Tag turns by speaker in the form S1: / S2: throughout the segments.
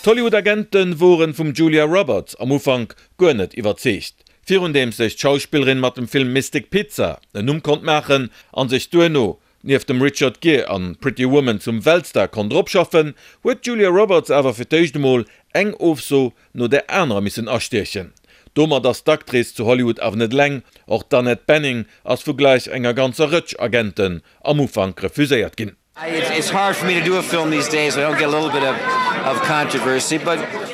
S1: D'Hollywood-Agente woren vum Julia Roberts am Ufank guer net iwwerzeegt. Virundeems sech d'Schauspillerin mat dem Film Mystic Pizza en Numm konnt maachen an sech duerno nieft dem Richard Gere an Pretty Woman zum Weltstar konnt eropschaffen, huet d'Julia Roberts awer fir d'éischt emol eng Ofso no där anerer missen astiechen. Domat ass d'Actrice zu Hollywood awer net eleng, och d'Annette Bening ass vu gläich enger ganzer Rëtsch Agenten am Ufank refuséiert ginn.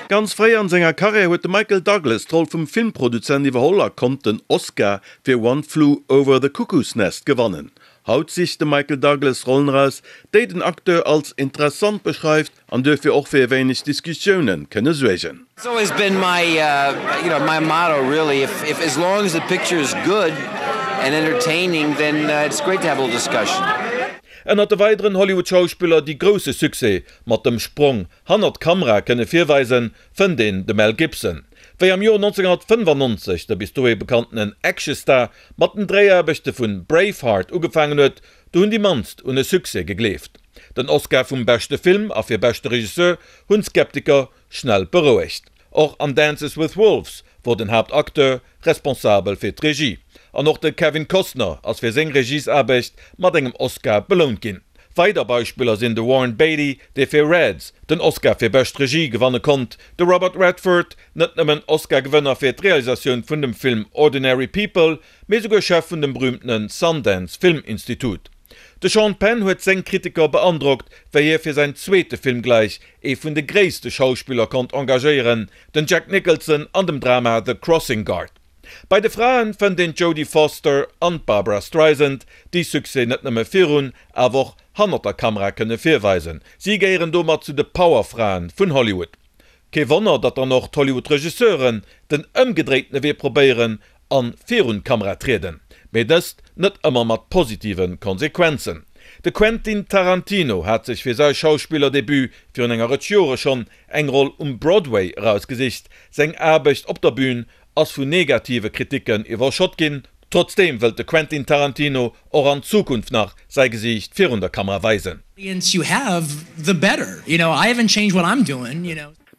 S1: Ganz fréi an senger Karriär huet de Michael Douglas d'Roll vum Filmproduzent iwwerholl a konnt den Oscar fir One Flew Over the Cuckoo's Nest gewannen. Haut sicht de Michael Douglas Rollen eraus, déi den Acteur als interessant beschreift an duerfir och fir e wéineg Diskussioune kënne suergen.
S2: It's always been my you know my motto really if if as long as the picture is good and entertaining then it's great to have a little discussion.
S1: Ënnert de weideren Hollywood-Schauspiller, déi grousse Succès mat dem Sprong hannert d'Kamera kënne virweisen, fënnt een de Mel Gibson. Wéi am Joer 1995 de bis dohi bekanntenen Actionstar mat den Dréiaarbechte vun Braveheart ugefaangen huet, do hunn déi mannst un e Succès gegleeft. Den Oscar vum beschte Film a fir beschte Regisseur hunn d'Skeptiker schnell berouegt. Och an Dances with Wolves wor den Haaptacteur responsabel fir d'Regie. An och de Kevin Costner ass fir seng Regiesaarbecht mat engem Oscar belount ginn. Weider Beispiller sinn de Warren Beatty, dee fir Reds den Oscar fir bescht Regie gewanne konnt, de Robert Redford, net nëmmen Oscar-Gewënner fir d'Realisatioun vun dem Film Ordinary People, mee souguer Chef vun dem berüümtene Sundance Film Institute. De Sean Penn huet seng Kritiker beandrockt, wéi hie fir säin zweete Film gläich ee vun de gréisste Schauspiller konnt engagéieren, den Jack Nicholson an dem Drama The Crossing Guard. Bei de Fraen fënnt een d'Jodie Foster an d'Barbra Streisand, déi Succès net nëmme virun, awer och hannert der Kamera kënne virweisen. Si gehéieren domat zu de Powerfraen vun Hollywood. Kee Wonner, datt dann och d'Hollywood-Regisseuren den ëmgedréitene Wee probéieren an virun d'Kamera trieden, mee dëst net ëmmer mat positive Konsequenzen. De Quentin Tarantino hat sech fir säi Schauspillerdebut virun enger Rëtsch Jore schonn eng Roll um Broadway erausgesicht. Seng Aarbecht op der Bün ass vun negative Kriticken iwwerschott ginn. Trotzdeem wëllt de Quentin Tarantino och an Zukunft nach säi Gesiicht virun der Kamera weisen.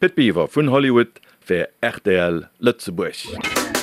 S1: Pit Biwer vun Hollywood fir rtl Lëtzebuerg.